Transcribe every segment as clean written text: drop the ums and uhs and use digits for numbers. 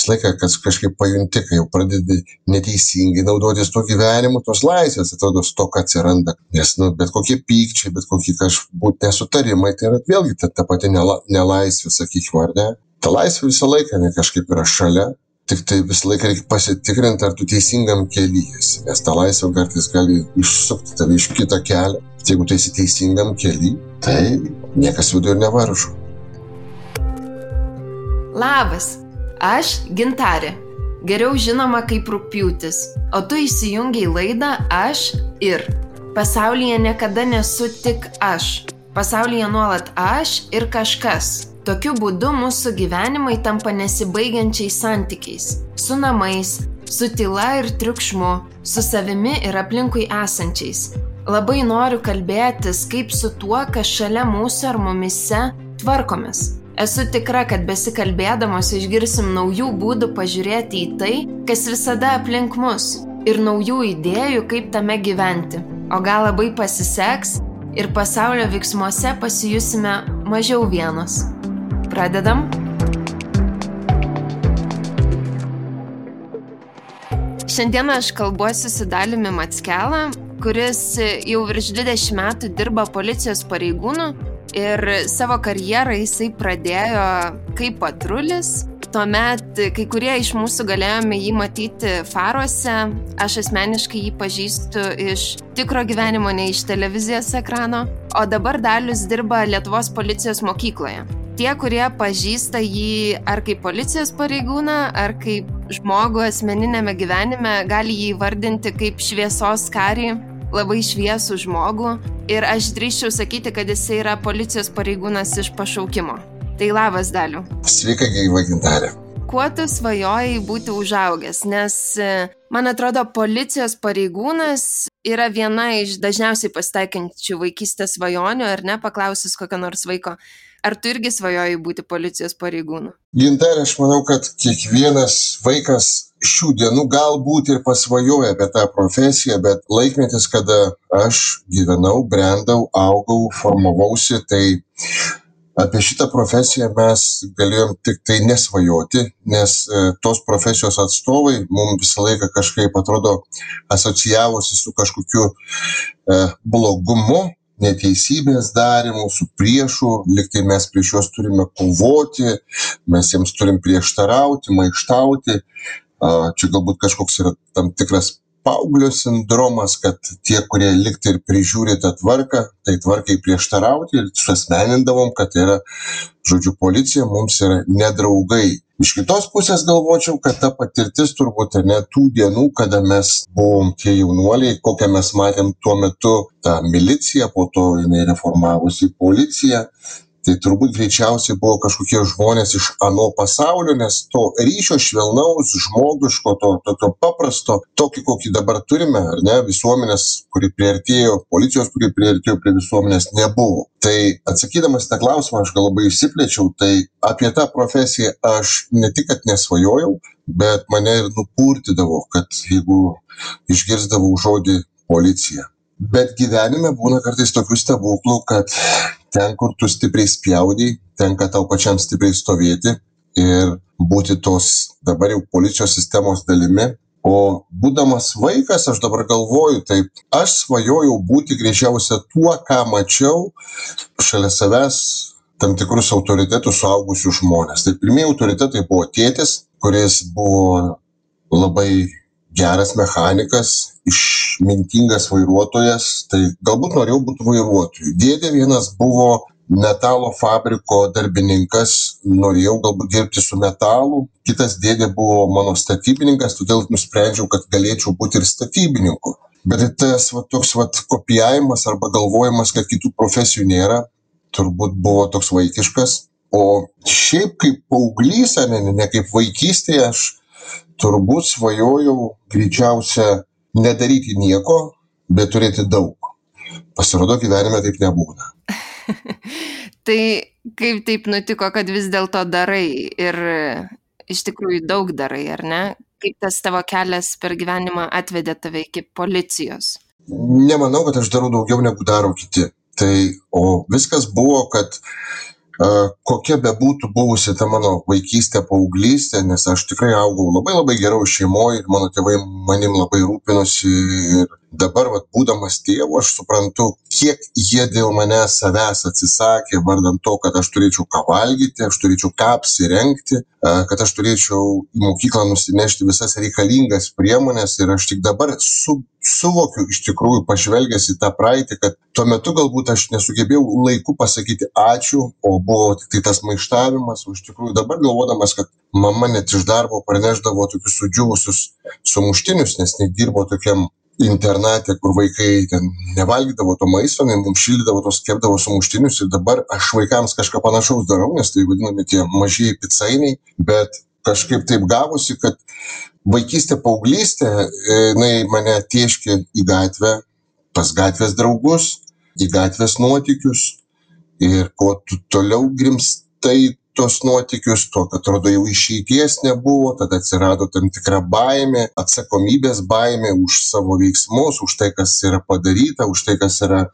visą laiką kažkaip pajunti, kai jau pradedi neteisingai naudotis tuo gyvenimu, tos laisvės atrodo stoka atsiranda. Nes bet kokie pykčiai, bet kokie kažbūt nesutarimai, tai yra vėlgi ta pati nelaisvė, sakykime, ar ne? Ta laisvė visą laiką kažkaip yra šalia. Tik tai visą laiką reikia pasitikrinti, ar tu teisingam kely esi, nes ta laisvė kartais gali išsukti tave iš kito kelio. Jeigu tu esi teisingam kely, tai niekas viduje ir nevaržo. Labas, aš Gintarė, geriau žinoma kaip Rugpjūtis, o tu įsijungiai laidą Aš ir. Pasaulyje niekada nesu tik aš, pasaulyje nuolat aš ir kažkas. Tokiu būdu mūsų gyvenimai tampa nesibaigiančiais santykiais. Su namais, su tyla ir triukšmu, su savimi ir aplinkui esančiais. Labai noriu kalbėtis, kaip su tuo, kas šalia mūsų ar mumise tvarkomės. Esu tikra, kad besikalbėdamos išgirsim naujų būdų pažiūrėti į tai, kas visada aplink mus, ir naujų idėjų, kaip tame gyventi. O gal labai pasiseks ir pasaulio veiksmuose pasijusime mažiau vienos. Pradedam. Šiandien aš kalbuosi su Daliumi Mackelą, kuris jau virš 20 metų dirba policijos pareigūnu ir savo karjerą jisai pradėjo kaip patrulis. Tuomet kai kurie iš mūsų galėjome jį matyti faruose. Aš asmeniškai jį pažįstu iš tikro gyvenimo, ne iš televizijos ekrano. O dabar Dalius dirba Lietuvos policijos mokykloje. Tie, kurie pažįsta jį ar kaip policijos pareigūną, ar kaip žmogų asmeninėme gyvenime, gali jį vardinti kaip šviesos karį, labai šviesų žmogų. Ir aš drįsčiau sakyti, kad jis yra policijos pareigūnas iš pašaukimo. Tai labas, Daliu. Sveika, gyva Gintarė. Kuo tu svajojai būti užaugęs? Nes, man atrodo, policijos pareigūnas yra viena iš dažniausiai pasitaikančių vaikystės svajonių, ar ne, paklausus kokio nors vaiko. Ar tu irgi svajojai būti policijos pareigūnu? Gintarė, aš manau, kad kiekvienas vaikas šių dienų galbūt ir pasvajoja apie tą profesiją, bet laikmetis, kada aš gyvenau, brendau, augau, formavausi, tai apie šitą profesiją mes galėjom tik tai nesvajoti, nes tos profesijos atstovai mums visą laiką kažkaip atrodo asocijavosi su kažkokiu blogumu, neteisybės darymu, su priešu, liktai mes prieš juos turime kovoti, mes jiems turim prieštarauti, maištauti. Čia galbūt kažkoks yra tam tikras paauglio sindromas, kad tie, kurie liktai ir prižiūri tą tvarką, tai tvarkai prieštarauti ir suasmenindavom, kad yra, žodžiu, policija mums yra nedraugai. Iš kitos pusės galvočiau, kad ta patirtis turbūt ne tų dienų, kada mes buvom tie jaunuoliai, kokią mes matėm tuo metu tą miliciją, po to jinai reformavosi policiją. Tai turbūt greičiausiai buvo kažkokie žmonės iš ano pasaulio, nes to ryšio švelnaus, žmogiško, to tokio paprasto, tokį, kokį dabar turime, ar ne, visuomenės, kuri priartėjo, policijos, kuri priartėjo prie visuomenės, nebuvo. Tai atsakydamas tą klausimą, aš gal labai išsiplėčiau, tai apie tą profesiją aš ne tik, kad nesvajojau, bet mane ir nupurtydavo, kad jeigu išgirsdavau žodį policija. Bet gyvenime būna kartais tokių stebuklų, kad ten, kur tu stipriai spjaudai, tenka tau pačiam stipriai stovėti ir būti tos dabar jau policijos sistemos dalimi. O būdamas vaikas, aš dabar galvoju, taip, aš svajojau būti greičiausia tuo, ką mačiau šalia savęs tam tikrus autoritetus suaugusių žmonės. Tai pirmieji autoritetai buvo tėtis, kuris buvo labai geras mechanikas, išmintingas vairuotojas, tai galbūt norėjau būti vairuotoju. Dėdė vienas buvo metalo fabriko darbininkas, norėjau galbūt dirbti su metalu. Kitas dėdė buvo mano statybininkas, todėl nusprendžiau, kad galėčiau būti ir statybininku. Bet tas toks kopijavimas arba galvojimas, kad kitų profesijų nėra, turbūt buvo toks vaikiškas. O šiaip kaip paauglys, ne kaip vaikystėje, aš turbūt svajojau greičiausia nedaryti nieko, bet turėti daug. Pasirodo, gyvenime taip nebūna. Tai kaip taip nutiko, kad vis dėlto darai ir iš tikrųjų daug darai, ar ne? Kaip tas tavo kelias per gyvenimą atvedė tave iki policijos? Nemanau, kad aš darau daugiau negu daro kiti. O viskas buvo, kad kokia bebūtų buvusi ta mano vaikystė, paauglystė, nes aš tikrai augau labai labai geroj šeimoje ir mano tėvai manim labai rūpinosi ir dabar, būdamas tėvu, aš suprantu, kiek jie dėl manęs savęs atsisakė, vardan to, kad aš turėčiau ką valgyti, aš turėčiau ką apsirengti, kad aš turėčiau į mokyklą nusinešti visas reikalingas priemonės ir aš tik dabar suvokiu iš tikrųjų pažvelgęs į tą praeitį, kad tuo metu galbūt aš nesugebėjau laiku pasakyti ačiū, o buvo tik tai tas maištavimas, o iš tikrųjų dabar galvodamas, kad mama net iš darbo parnešdavo tokius sudžiūvusius sumuštinius, nes nedirbo tokiam internate, kur vaikai ten nevalgydavo to maisto, mums šildydavo tos, kepdavo sumuštinius ir dabar aš vaikams kažką panašaus darau, nes tai vadinami tie mažieji picainiai, bet kažkaip taip gavosi, kad vaikystė, paauglystė, jinai mane tėškė į gatvę, pas gatvės draugus, į gatvės nuotykius ir kuo tu toliau grimstai tos nuotykius, to, kad atrodo jau išeities nebuvo, tada atsirado tam tikra baimė, atsakomybės baimė už savo veiksmus, už tai, kas yra padaryta, už tai, kas yra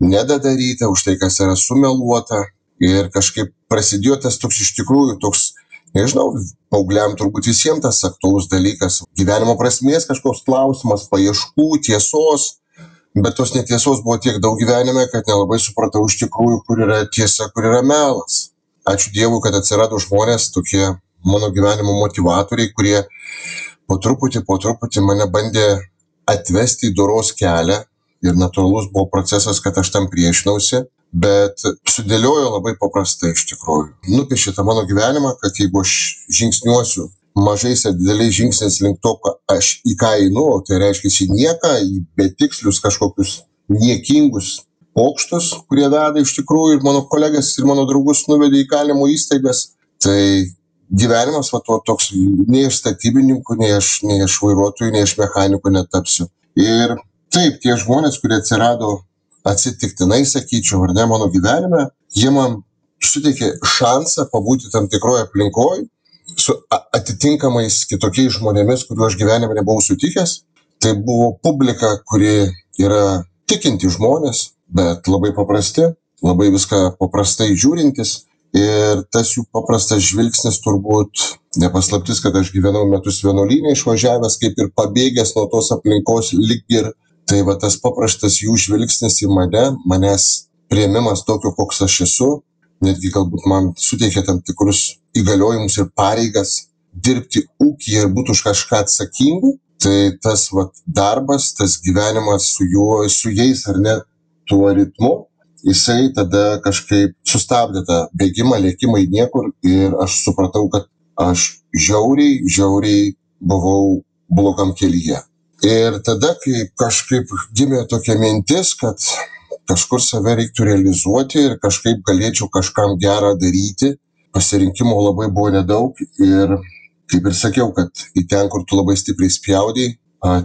nedadaryta, už tai, kas yra sumeluota. Ir kažkaip prasidėjo tas toks iš tikrųjų toks, nežinau, paaugliam turbūt visiems tas aktualus dalykas, gyvenimo prasmės kažkoks klausimas, paieškų, tiesos, bet tos netiesos buvo tiek daug gyvenime, kad nelabai supratau iš tikrųjų, kur yra tiesa, kur yra melas. Ačiū Dievui, kad atsirado žmonės, tokie mano gyvenimo motivatoriai, kurie po truputį mane bandė atvesti į doros kelią ir natūralus buvo procesas, kad aš tam priešinausi, bet sudėliojo labai paprastai iš tikrųjų. Nupiešė tą mano gyvenimą, kad jeigu aš žingsniuosiu mažais ir dideliais žingsniais link to, aš į ką einu, tai reiškia į nieką, į betikslius kažkokius niekingus pokštus, kurie veda iš tikrųjų ir mano kolegas ir mano draugus nuvedė į kalinimo įstaigas. Tai gyvenimas toks, nei iš statybininkų, nei iš vairuotojų, nei iš mechanikų netapsiu. Ir taip, tie žmonės, kurie atsirado atsitiktinai, sakyčiau, ar ne, mano gyvenime, jie man suteikė šansą pabūti tam tikroje aplinkoje su atitinkamais kitokiais žmonėmis, kuriuo aš gyvenime nebuvau sutikęs. Tai buvo publika, kuri yra tikinti žmonės, bet labai paprasti, labai viską paprastai žiūrintis ir tas jų paprastas žvilgsnis turbūt nepaslaptis, kad aš gyvenau metus vienuolyne išvažiavęs, kaip ir pabėgęs nuo tos aplinkos lyg ir, tai tas paprastas jų žvilgsnis į manęs priėmimas tokio, koks aš esu, netgi galbūt man suteikė tam tikrus įgaliojimus ir pareigas dirbti ūkyje ir būti už kažką atsakingų, tai tas darbas, tas gyvenimas su jais ar ne, tuo ritmu, jisai tada kažkaip sustabdė tą bėgimą, lėkimą į niekur ir aš supratau, kad aš žiauriai buvau blogam kelyje. Ir tada, kai kažkaip gimė tokia mintis, kad kažkur save reiktų realizuoti ir kažkaip galėčiau kažkam gerą daryti, pasirinkimo labai buvo nedaug ir kaip ir sakiau, kad į ten, kur tu labai stipriai spjaudai,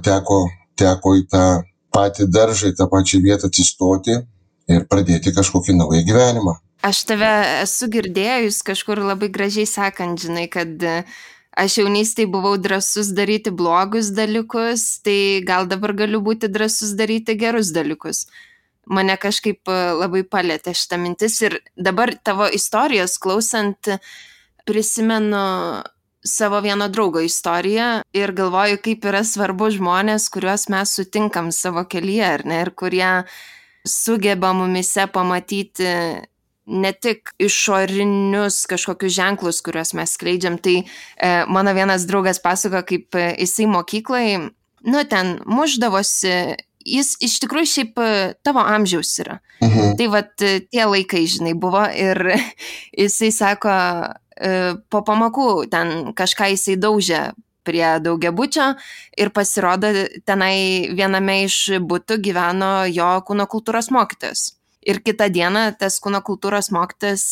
teko į tą patį daržą, į tą pačią vietą atsistoti ir pradėti kažkokį naują gyvenimą. Aš tave esu girdėjus kažkur labai gražiai sakant, žinai, kad aš jaunystėje buvau drąsus daryti blogus dalykus, tai gal dabar galiu būti drąsus daryti gerus dalykus. Mane kažkaip labai palėtė šitą mintis ir dabar tavo istorijos klausant prisimenu savo vieno draugo istoriją ir galvoju, kaip yra svarbu žmonės, kuriuos mes sutinkam savo kelyje, ar ne, ir kurie sugeba mumise pamatyti ne tik išorinius kažkokius ženklus, kuriuos mes skleidžiam. Tai mano vienas draugas pasako, kaip jisai mokyklai, ten mušdavosi, jis iš tikrųjų šiaip tavo amžiaus yra. Tai tie laikai, žinai, buvo ir jisai sako, po pamokų ten kažką jisai daužė prie daugiabučio ir pasirodo tenai viename iš butų gyveno jo kūno kultūros mokytojas. Ir kitą dieną tas kūno kultūros mokytojas,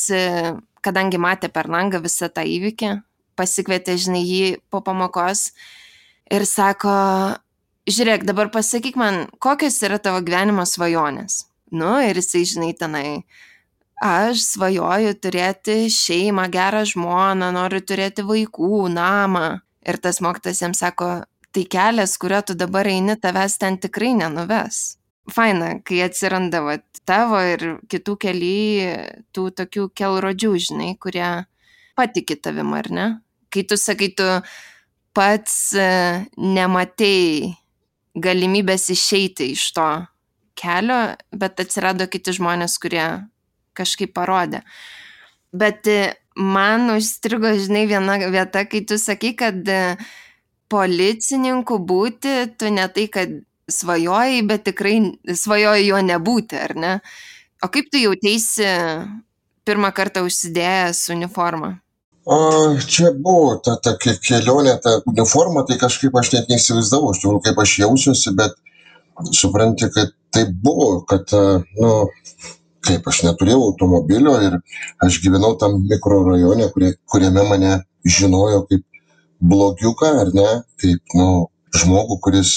kadangi matė per langą visą tą įvykį, pasikvietė, žinai, jį po pamokos ir sako, žiūrėk, dabar pasakyk man, kokios yra tavo gyvenimo svajonės. Ir jisai, žinai, tenai, aš svajoju turėti šeimą, gerą žmoną, noriu turėti vaikų, namą. Ir tas mokytojas jam sako, tai kelias, kurio tu dabar eini, tavęs ten tikrai nenuves. Faina, kai atsiranda tavo ir kitų keli tų tokių kelrodžių, žinai, kurie patiki tavim, ar ne? Kai tu sakai, tu pats nematei galimybės išeiti iš to kelio, bet atsirado kiti žmonės, kurie kažkaip parodė. Bet man užstrigo, žinai, viena vieta, kai tu sakai, kad policininku būti, tu ne tai, kad svajojai, bet tikrai svajojai jo nebūti, ar ne? O kaip tu jauteisi pirmą kartą užsidėjęs uniformą? Čia buvo ta kelionė, ta uniforma, tai kažkaip aš net neįsivaizdavau, iš tikrųjų, kaip aš jausiuosi, bet supranti, kad tai buvo, kad, kaip aš neturėjau automobilio ir aš gyvenau tam mikrorajone, kuriame mane žinojo kaip blogiuką, ar ne, kaip, žmogų, kuris,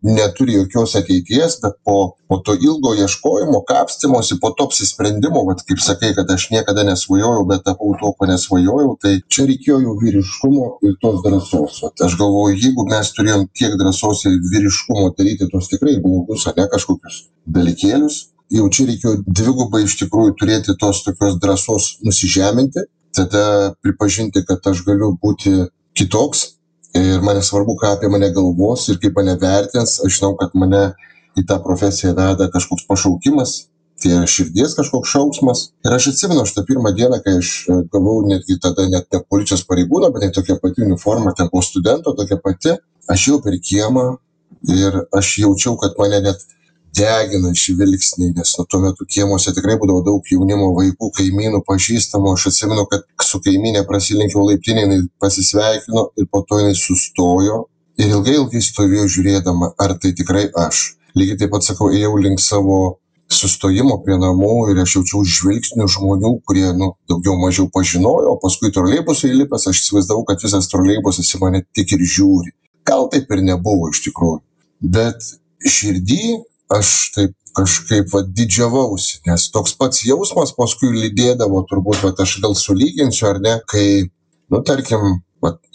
neturi jokios ateities, bet po to ilgo ieškojimo, kapstymosi, po to apsisprendimo, kaip sakai, kad aš niekada nesvajojau, bet tapau to, ko nesvajojau, tai čia reikėjo jau vyriškumo ir tos drąsos. Aš galvoju, jeigu mes turėjom tiek drąsos ir vyriškumo daryti tos tikrai blogus, ne kažkokius dalykėlius, jau čia reikėjo dvigubai iš tikrųjų turėti tos tokios drąsos nusižeminti, tada pripažinti, kad aš galiu būti kitoks. Ir man svarbu, ką apie mane galvos ir kaip mane vertins. Aš žinau, kad mane į tą profesiją veda kažkoks pašaukimas, tai yra širdies kažkoks šauksmas. Ir aš atsimenu šitą pirmą dieną, kai aš gavau netgi tada net ne policijos pareigūną, bet tokia pati uniforma, ten po studento tokia pati. Aš jau per kiemą ir aš jaučiau, kad mane net degina žvilgsniai, nes tuo metu kiemuose tikrai būdavo daug jaunimo, vaikų, kaimynų, pažįstamų. Aš atsimenu, kad su kaimynė prasilenkiau laiptinę, jinai pasisveikino ir po to jinai sustojo ir ilgai stovėjo žiūrėdama, ar tai tikrai aš. Lygiai taip pat, sakau, ėjau link savo sustojimo prie namų ir aš jaučiau žvilgsnių žmonių, kurie, daugiau mažiau pažinojo, o paskui troleibusui įlipęs, aš įsivaizdavau, kad visas troleibusas į mane tik ir žiūri. Gal taip ir nebuvo iš tikrųjų, bet širdį aš taip kažkaip didžiavausi, nes toks pats jausmas paskui lydėdavo, turbūt, aš gal sulyginsiu ar ne, kai, tarkim,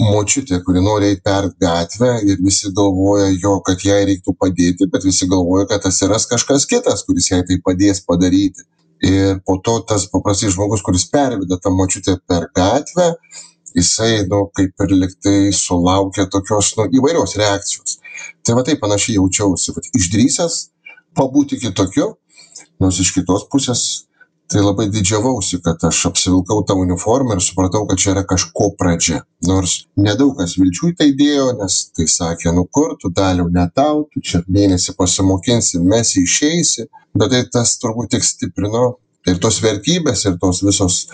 močiutė, kuri nori eiti per gatvę ir visi galvoja jo, kad jai reiktų padėti, bet visi galvoja, kad atsiras kažkas kitas, kuris jai tai padės padaryti. Ir po to tas paprastai žmogus, kuris perveda tą močiutę per gatvę, jisai, kaip ir liktai sulaukia tokios, įvairios reakcijos. Tai taip panašiai jaučiausi, išdrįsęs pabūti kitokiu, nors iš kitos pusės tai labai didžiavausi, kad aš apsivilkau tą uniformą ir supratau, kad čia yra kažko pradžia. Nors nedaug kas vilčių į tai dėjo, nes tai sakė, kur tu Daliau, ne tau, tu čia mėnesį pasimokinsi, mes išeisi, bet tai tas turbūt tik stiprino ir tos vertybės, ir tos visos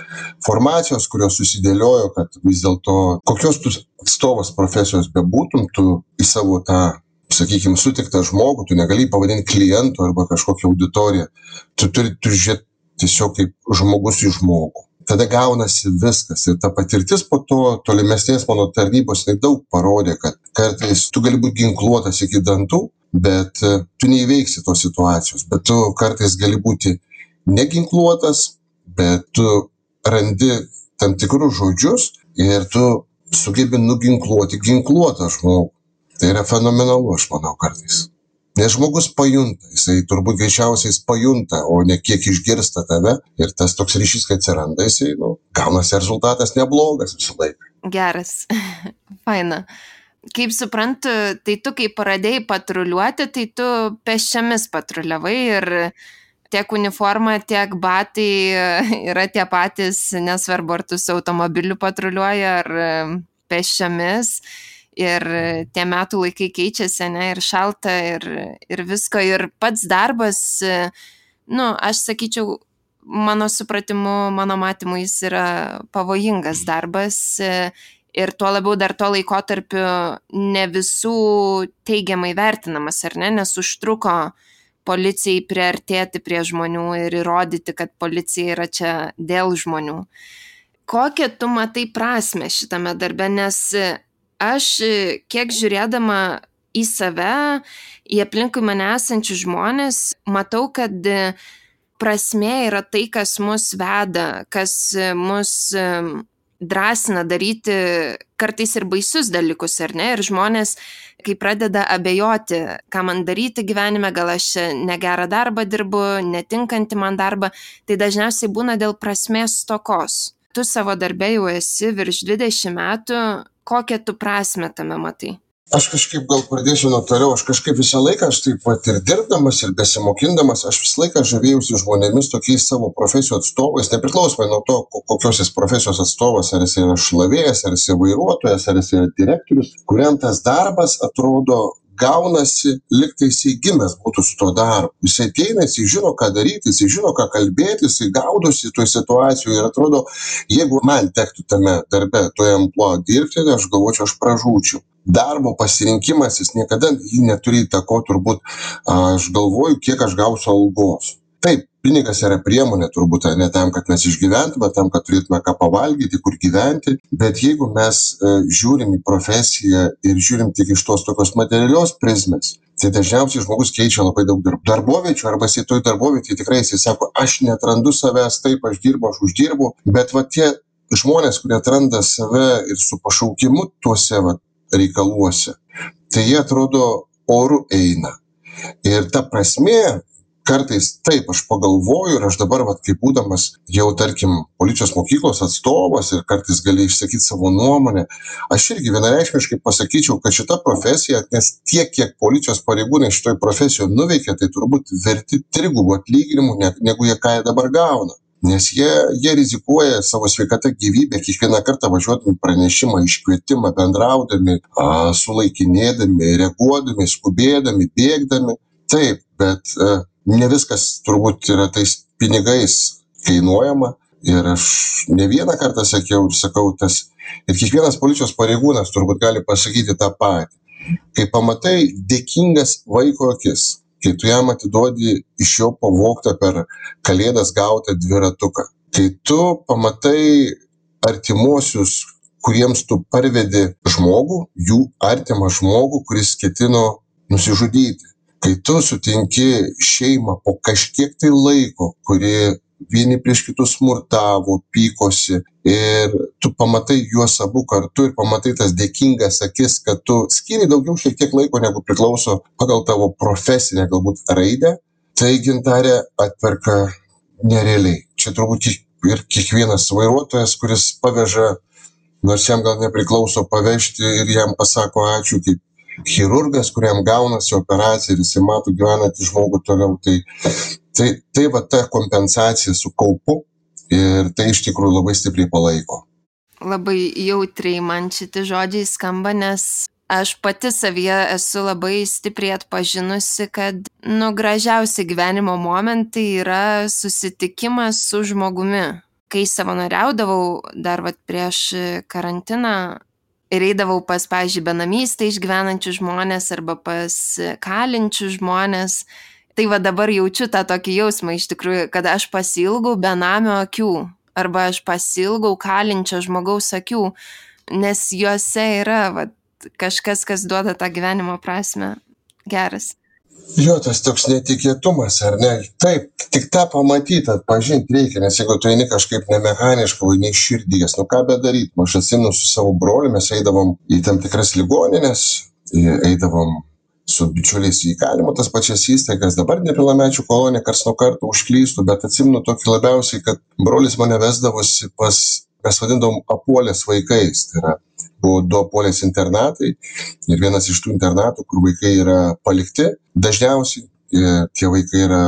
formacijos, kurios susidėliojo, kad vis dėlto kokios tu atstovas profesijos bebūtum, tu į savo tą, sakykime, sutiktą žmogų, tu negali pavadinti klientų arba kažkokią auditoriją. Tu turi žiūrėti tiesiog kaip žmogus į žmogų. Tada gaunasi viskas. Ir ta patirtis po to tolimesnės mano tarnybos daug parodė, kad kartais tu gali būti ginkluotas iki dantų, bet tu neįveiksi tos situacijos. Bet tu kartais gali būti neginkluotas, bet tu randi tam tikrus žodžius ir tu sugebi nuginkluoti ginkluotą žmogų. Tai yra fenomenalu, aš manau, kartais. Nes žmogus pajunta, jisai turbūt greičiausiai pajunta, o ne kiek išgirsta tave. Ir tas toks ryšys, kai atsiranda, jisai, gaunasi rezultatas neblogas visą laiką. Geras, faina. Kaip suprantu, tai tu, kai pradėjai patruliuoti, tai tu pėsčiomis patruliavai ir tiek uniforma, tiek batai yra tie patys, nesvarbu, ar tu su automobiliu patruliuoji ar pėsčiomis. Ir tie metų laikai keičiasi, ir šalta, ir visko. Ir pats darbas, aš sakyčiau, mano supratimu, mano matymu, jis yra pavojingas darbas. Ir tuo labiau dar tuo laikotarpiu ne visų teigiamai vertinamas, ar ne? Nes užtruko policijai priartėti prie žmonių ir įrodyti, kad policija yra čia dėl žmonių. Kokią tu matai prasmę šitame darbe? Nes aš, kiek žiūrėdama į save, į aplinkui mane esančius žmonės, matau, kad prasmė yra tai, kas mus veda, kas mus drąsina daryti kartais ir baisius dalykus, ar ne? Ir žmonės, kai pradeda abejoti, ką man daryti gyvenime, gal aš negerą darbą dirbu, netinkantį man darbą, tai dažniausiai būna dėl prasmės stokos. Tu savo darbe jau esi virš 20 metų, kokią tu prasmę tame matai? Aš kažkaip gal pradėsiu nuo toliau, aš kažkaip visą laiką, aš taip pat ir dirbdamas, ir besimokindamas, aš visą laiką žavėjausi žmonėmis tokiais savo profesijų atstovais, nepriklausomai nuo to, kokios jis profesijos atstovas, ar jis yra šlavėjas, ar jis yra vairuotojas, ar jis yra direktorius, kuriam tas darbas atrodo gaunasi, lyg tai jisai gimęs būtų su to darbu. Jisai ateina, jisai žino, ką daryti, jisai žino, ką kalbėti, jisai gaudosi toj situacijoje ir atrodo, jeigu man tektų tame darbe, toje ampluoje dirbti, aš galvočiau, aš pražūčiau. Darbo pasirinkimas, jis niekada jį neturi įtako, turbūt, aš galvoju, kiek aš gausiu algos. Taip, pinigas yra priemonė, turbūt, ne tam, kad mes išgyventume, tam, kad turėtume ką pavalgyti, kur gyventi, bet jeigu mes žiūrim į profesiją ir žiūrim tik iš tos tokios materialios prizmės, tai dažniausiai žmogus keičia labai daug darboviečių, arba jisai toj darbovietėje tikrai jisai sako, aš netrandu savęs, taip, aš uždirbu, bet va tie žmonės, kurie atranda save ir su pašaukimu tuose reikaluose, tai jie atrodo oru eina. Ir ta prasmė, kartais taip aš pagalvoju ir aš dabar, kaip būdamas jau, tarkim, policijos mokyklos atstovas ir kartais gali išsakyti savo nuomonę, aš irgi vienareikšmiškai pasakyčiau, kad šita profesija, nes tiek, kiek policijos pareigūnai šitoj profesijoje nuveikia, tai turbūt verti 3 atlyginimų, negu jie ką dabar gauna. Nes jie rizikuoja savo sveikatą, gyvybę, kiekvieną kartą važiuodami pranešimą, iškvietimą, bendraudami, sulaikinėdami, reaguodami, skubėdami, bėgdami. Taip, bet ne viskas turbūt yra tais pinigais kainuojama. Ir aš ne vieną kartą sakiau ir sakau tas, ir kiekvienas policijos pareigūnas turbūt gali pasakyti tą patį. Kai pamatai dėkingas vaiko akis, kai tu jam atiduodi iš jo pavogtą per kalėdas gautą dviratuką, kai tu pamatai artimuosius, kuriems tu parvedi žmogų, jų artimą žmogų, kuris ketino nusižudyti, kai tu sutinki šeimą po kažkiek tai laiko, kuri vieni prieš kitus smurtavo, pykosi, ir tu pamatai juos abu kartu ir pamatai tas dėkingas akis, kad tu skiri daugiau šiek tiek laiko, negu priklauso pagal tavo profesinę galbūt raidę, tai Gintarė atperka nerealiai. Čia turbūt ir kiekvienas vairuotojas, kuris paveža, nors jam gal nepriklauso pavežti ir jam pasako ačiū, kaip chirurgas, kuriam gaunasi operacija ir jisai mato gyvenantį žmogų toliau, tai va ta kompensacija su kaupu ir tai iš tikrųjų labai stipriai palaiko. Labai jautriai man šitie žodžiai skamba, nes aš pati savyje esu labai stipriai atpažinusi, kad gražiausi gyvenimo momentai yra susitikimas su žmogumi. Kai savanoriaudavau dar prieš karantiną ir eidavau pas, pavyzdžiui, benamystę išgyvenančių žmonės arba pas kalinčių žmonės, tai va dabar jaučiu tą tokį jausmą iš tikrųjų, kad aš pasiilgau benamio akių arba aš pasiilgau kalinčio žmogaus akių, nes juose yra kažkas, kas duoda tą gyvenimo prasmę. Geras. Jo, tas toks netikėtumas, ar ne? Taip, tik tą pamatyti, atpažinti reikia, nes jeigu tu eini kažkaip nemechaniškai, nei širdies, ką bedaryti. Aš atsimenu su savo broliu, mes eidavom į tam tikras ligoninės, eidavom su bičiuliais į įkalinimo tas pačias įstaigas, dabar nepilnamečių kolonija karts nuo karto užklystų, bet atsimenu tokį labiausiai, kad brolis mane vesdavosi pas, mes vadindavom apuolės vaikais, tai yra, buvo 2 apuolės internatai ir vienas iš tų internatų, kur vaikai yra palikti, dažniausiai tie vaikai yra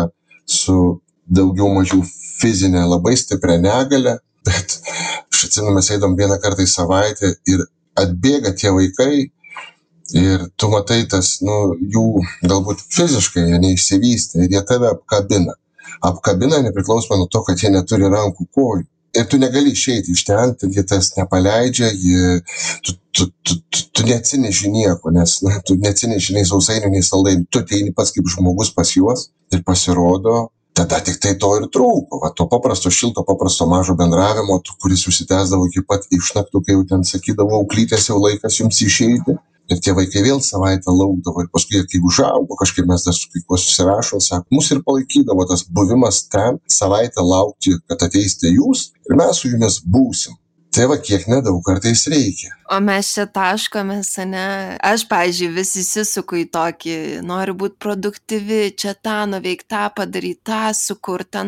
su daugiau mažiau fizinė labai stipria negalia, bet aš atsimenu, mes eidom vieną kartą į savaitę ir atbėga tie vaikai, ir tu matai tas, jų galbūt fiziškai jie neišsivystė ir jie tave apkabina. Apkabina nepriklausomai nuo to, kad jie neturi rankų, kojų. Ir tu negali išeiti iš ten, jie tas nepaleidžia, tu neatsineši nieko, nes tu neatsineši nei sausainių, nei saldainių. Tu ateini pats kaip žmogus pas juos ir pasirodo, tada tik tai to ir trūko. To paprasto, šilto, paprasto mažo bendravimo, kuris užsitęsdavo iki pat išnaktų, kai jau ten sakydavo, auklytės jau laikas jums išeiti. Ir tie vaikai vėl savaitę laukdavo ir paskui, kai užaugo, kažkaip mes dar su kai kuo susirašom, sako, mus ir palaikydavo tas buvimas ten, savaitę laukti, kad ateisite jūs ir mes su jumis būsim. Tai va, kiek nedaug kartais reikia. O mes čia taškomės, ne? Aš, pavyzdžiui, vis įsisuku į tokį, noriu būti produktyvi, čia tą nuveikti, tą padaryti, tą sukurti,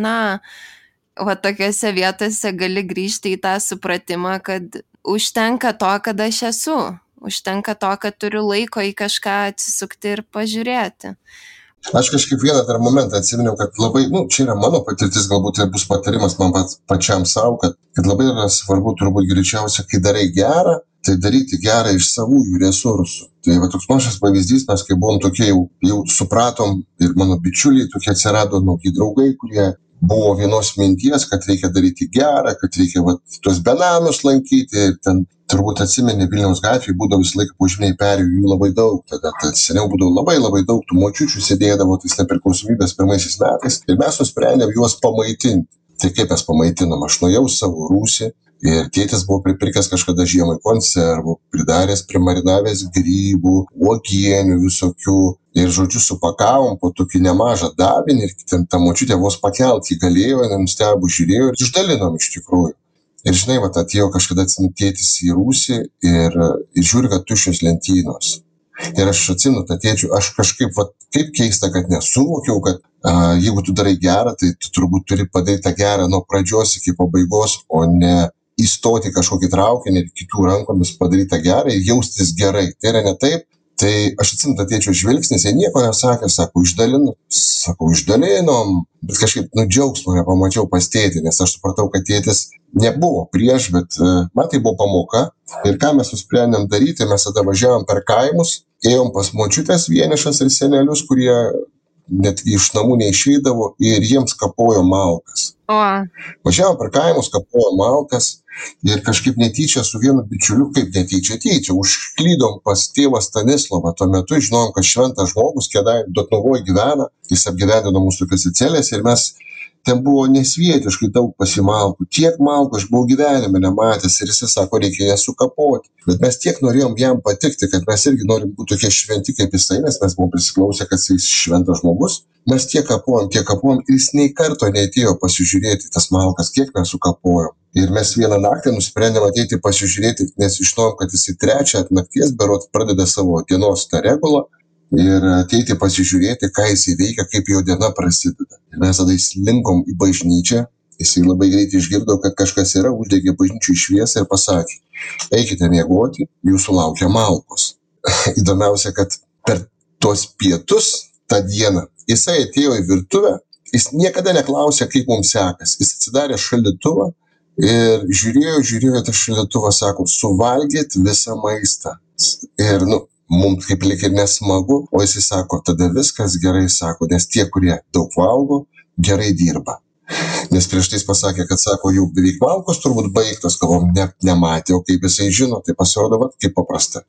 O tokiose vietose gali grįžti į tą supratimą, kad užtenka to, kad aš esu. Užtenka to, kad turiu laiko į kažką atsisukti ir pažiūrėti. Aš kažkaip vieną dar momentą atsiminiau, kad labai, čia yra mano patirtis, galbūt tai bus patarimas man pačiam savo, kad labai yra svarbu turbūt greičiausia, kai darai gerą, tai daryti gerą iš savųjų resursų. Tai va toks mažas pavyzdys, mes kai buvom tokie jau supratom ir mano bičiuliai tokie atsirado nauji draugai, kurie buvo vienos minties, kad reikia daryti gerą, kad reikia tuos benamius lankyti ir ten turbūt atsimeni Vilniaus gatvėje būdavo visą laiką požeminiai perėjų, jų labai daug, tada seniau būdavo labai daug tų močiučių sėdėdavo tais nepriklausomybės pirmaisiais metais ir mes nusprendėm juos pamaitinti. Tai kaip mes pamaitinom, aš nuėjau savo rūsį ir tėtis buvo pripirkęs kažkada žiemai konservų, pridaręs, primarinavęs grybų, uogienių visokių ir žodžiu supakavom po tokį nemažą davinį ir ten ta močiutė vos pakelti galėjo, nenustebus žiūrėjo ir išdalinom iš tikrųjų. Ir žinai, atėjo kažkada tėtis į rūsį ir žiūri, kad tuščios lentynos. Ir aš atsimenu tą tėčių, aš kažkaip, kaip keista, kad nesuvokiau, kad jeigu tu darai gerą, tai tu turbūt turi padaryti tą gerą nuo pradžios iki pabaigos, o ne įstoti kažkokį traukinį ir kitų rankomis padaryti tą gerą ir jaustis gerai. Tai yra ne taip. Tai aš atsimenu tą tėčio žvilgsnis, jie nieko nesakė, sako, išdalinom, bet kažkaip džiaugsmo nepamačiau pas tėtį, nes aš supratau, kad tėtis nebuvo prieš, bet man tai buvo pamoka. Ir ką mes nusprendėm daryti, mes tada važiavom per kaimus, ėjom pas močiutės vienišas ir senelius, kurie net iš namų neišeidavo ir jiems kapojo malkas. Važiavom per kaimus, kapojo malkas ir kažkaip netyčia su vienu bičiuliu, kaip netyčia, užklydom pas tėvą Stanislovą. Tuo metu žinojom, kad šventas žmogus Dotnuvoj gyvena, jis apgyvendino mūsų celėse ir mes ten buvo nesvietiškai daug pasimalkų. Tiek malkų aš buvau gyvenime nematęs ir jis sako, reikia jas sukapoti. Bet mes tiek norėjom jam patikti, kad mes irgi norim būti tokie šventi kaip jisai, nes mes buvom prisiklausę, kad jis šventas žmogus. Mes tiek kapojom ir jis nei karto neatėjo pasižiūrėti tas malkas, kiek mes sukapojom. Ir mes vieną naktį nusprendėm ateiti pasižiūrėti, nes žinojom, kad jis į 3 nakties berot pradeda savo dienos tą regulą ir ateiti pasižiūrėti, ką jis įveikia, kaip jo diena prasideda. Ir mes tada įslinkom į bažnyčią, jis labai greitai išgirdo, kad kažkas yra, uždegė bažnyčių šviesą ir pasakė, eikite miegoti, jūsų laukia malkos. Įdomiausia, kad per tuos pietus tą dieną jisai atėjo į virtuvę, jis niekada neklausė, kaip mums sekas. Jis atsidarė šaldytuvą ir žiūrėjo tą šaldytuvą, sako, suvalgėt visą maistą. Ir mums kaip lyg ir nesmagu, o jisai sako, tada viskas gerai, sako, nes tie, kurie daug valgo, gerai dirba. Nes prieš tai jis pasakė, kad sako, jau beveik malkos turbūt baigtos, galvom, nematė, o kaip jisai žino, tai pasirodo, kaip paprasta.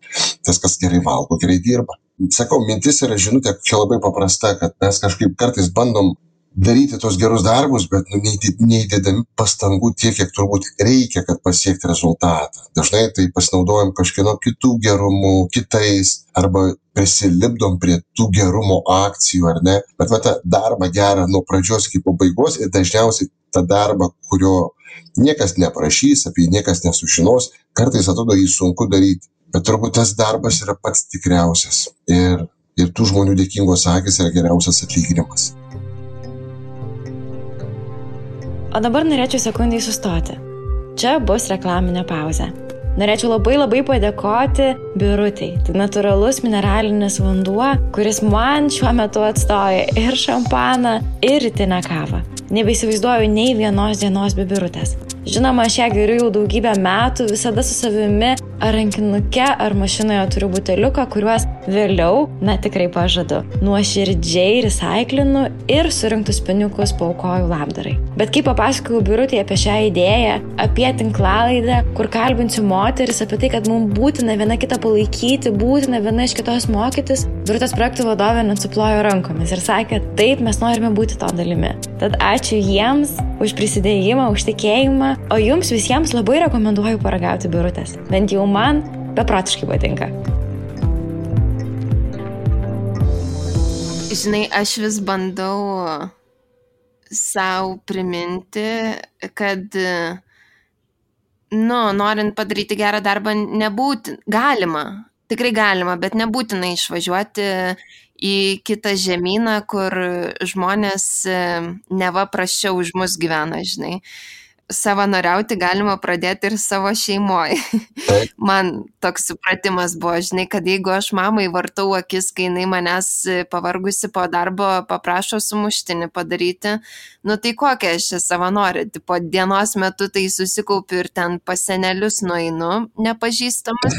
Tas, kas gerai valgo, gerai dirba. Sakau, mintis yra žinutė, čia labai paprasta, kad mes kažkaip kartais bandom daryti tos gerus darbus, bet neįdėdami pastangų tiek, kiek turbūt reikia, kad pasiekti rezultatą. Dažnai tai pasinaudojam kažkieno kitų gerumų, kitais, arba prisilipdom prie tų gerumo akcijų, ar ne? Bet tą darbą gerą nuo pradžios iki pabaigos ir dažniausiai tą darbą, kurio niekas neprašys, apie jį niekas nesužinos, kartais atrodo jį sunku daryti. Bet turbūt tas darbas yra pats tikriausias. Ir tų žmonių dėkingos akys yra geriausias atlyginimas. O dabar norėčiau sekundai sustoti. Čia bus reklaminė pauzė. Norėčiau labai padėkoti Birutei. Tai natūralus mineralinis vanduo, kuris man šiuo metu atstoja ir šampaną, ir rytinę kavą. Nebeįsivaizduoju nei vienos dienos be Birutės. Žinoma, aš ją geriu jau daugybę metų, visada su savimi ar rankinuke, ar mašinoje turiu buteliuką, kuriuos vėliau, tikrai pažadu, nuoširdžiai recaiklinu ir surinktus pinigus paaukoju labdarai. Bet kai papasakojau Birutei apie šią idėją, apie tinklalaidę, kur kalbinsiu moteris, apie tai, kad mums būtina viena kitą palaikyti, būtina viena iš kitos mokytis, Birutės projektų vadovė net suplojo rankomis ir sakė, taip, mes norime būti to dalimi. Tad ačiū jiems už prisidėjimą, už tikėjimą, o jums visiems labai rekomenduoju paragauti Birutės. Bent jau man beprotiškai patinka. Žinai, aš vis bandau sau priminti, kad norint padaryti gerą darbą, galima, tikrai galima, bet nebūtina išvažiuoti į kitą žemyną, kur žmonės neva prasčiau už mus gyvena, žinai. Savanoriauti galima pradėti ir savo šeimoje. Man toks supratimas buvo, žinai, kad jeigu aš mamai vartau akis, kai jinai manęs pavargusi po darbo paprašo sumuštinį padaryti, tai kokia aš čia savanorė, po dienos metu tai susikaupiu ir ten pas senelius nueinu, nepažįstamas,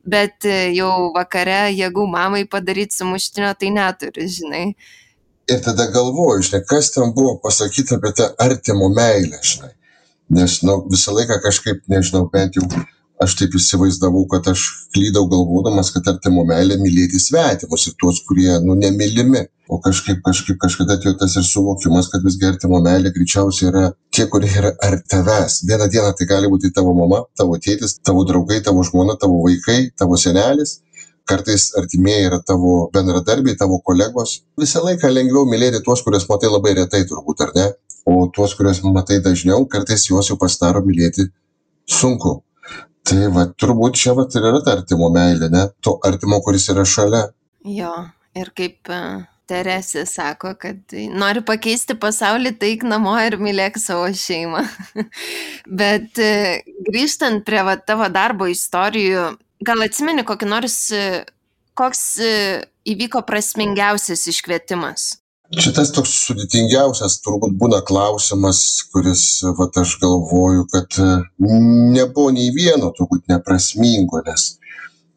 bet jau vakare jėgų mamai padaryti sumuštinio, tai neturi, žinai. Ir tada galvoju, žinai, kas ten buvo pasakyta apie tą artimo meilę, žinai. Nes, visą laiką kažkaip, nežinau, bent jau aš taip įsivaizdavau, kad aš klydau galvodamas, kad artimo meilė mylėti svetimus ir tuos, kurie, nemylimi. O kažkada atėjo tas ir suvokimas, kad visgi artimo meilė greičiausiai yra tie, kurie yra art tavęs. Vieną dieną tai gali būti tavo mama, tavo tėtis, tavo draugai, tavo žmona, tavo vaikai, tavo senelis. Kartais artimieji yra tavo bendradarbiai, tavo kolegos. Visą laiką lengviau mylėti tuos, kuriuos matai labai retai turbūt, ar ne? O tuos, kuriuos matai dažniau, kartais juos jau pasidaro mylėti sunku. Tai turbūt čia ir yra ta artimo meilė, ne? To artimo, kuris yra šalia. Jo, ir kaip Teresė sako, kad nori pakeisti pasaulį, taik namo ir mylėk savo šeimą. Bet grįžtant prie tavo darbo istorijų, gal atsimeni koks įvyko prasmingiausias iškvietimas? Šitas toks sudėtingiausias turbūt būna klausimas, kuris, aš galvoju, kad nebuvo nei vieno turbūt neprasmingo, nes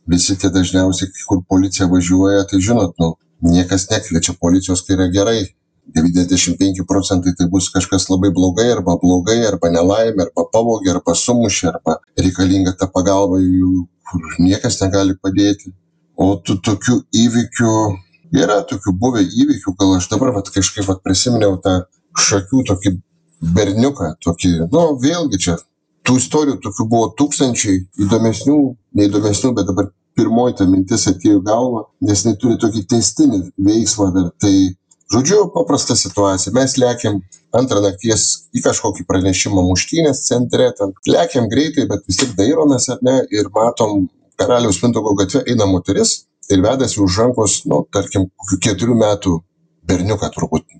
visi tie dažniausiai, kur policija važiuoja, tai žinot, niekas nekviečia policijos, kai yra gerai. 95% tai bus kažkas labai blogai, arba nelaimė, arba pavogė, arba sumušė, arba reikalinga ta pagalba, kur niekas negali padėti. O tų tokių įvykių, yra tokių buvę įvykių, gal aš dabar kažkaip prisiminiau tą Šakių tokį berniuką, vėlgi čia tų istorijų tokių buvo tūkstančiai, įdomesnių, neįdomesnių, bet dabar pirmoji ta mintis atėjo į galvą, nes jinai turi tokį tęstinį veiksmą dar. Tai, žodžiu, paprasta situacija. Mes lekiam 2 nakties į kažkokį pranešimą muštynės centre, ten lekiam greitai, bet vis tik dairomės, ar ne, ir matom Karaliaus Mindaugo gatve eina moteris ir vedasi už rankos, tarkim, kokių 4 metų berniuką,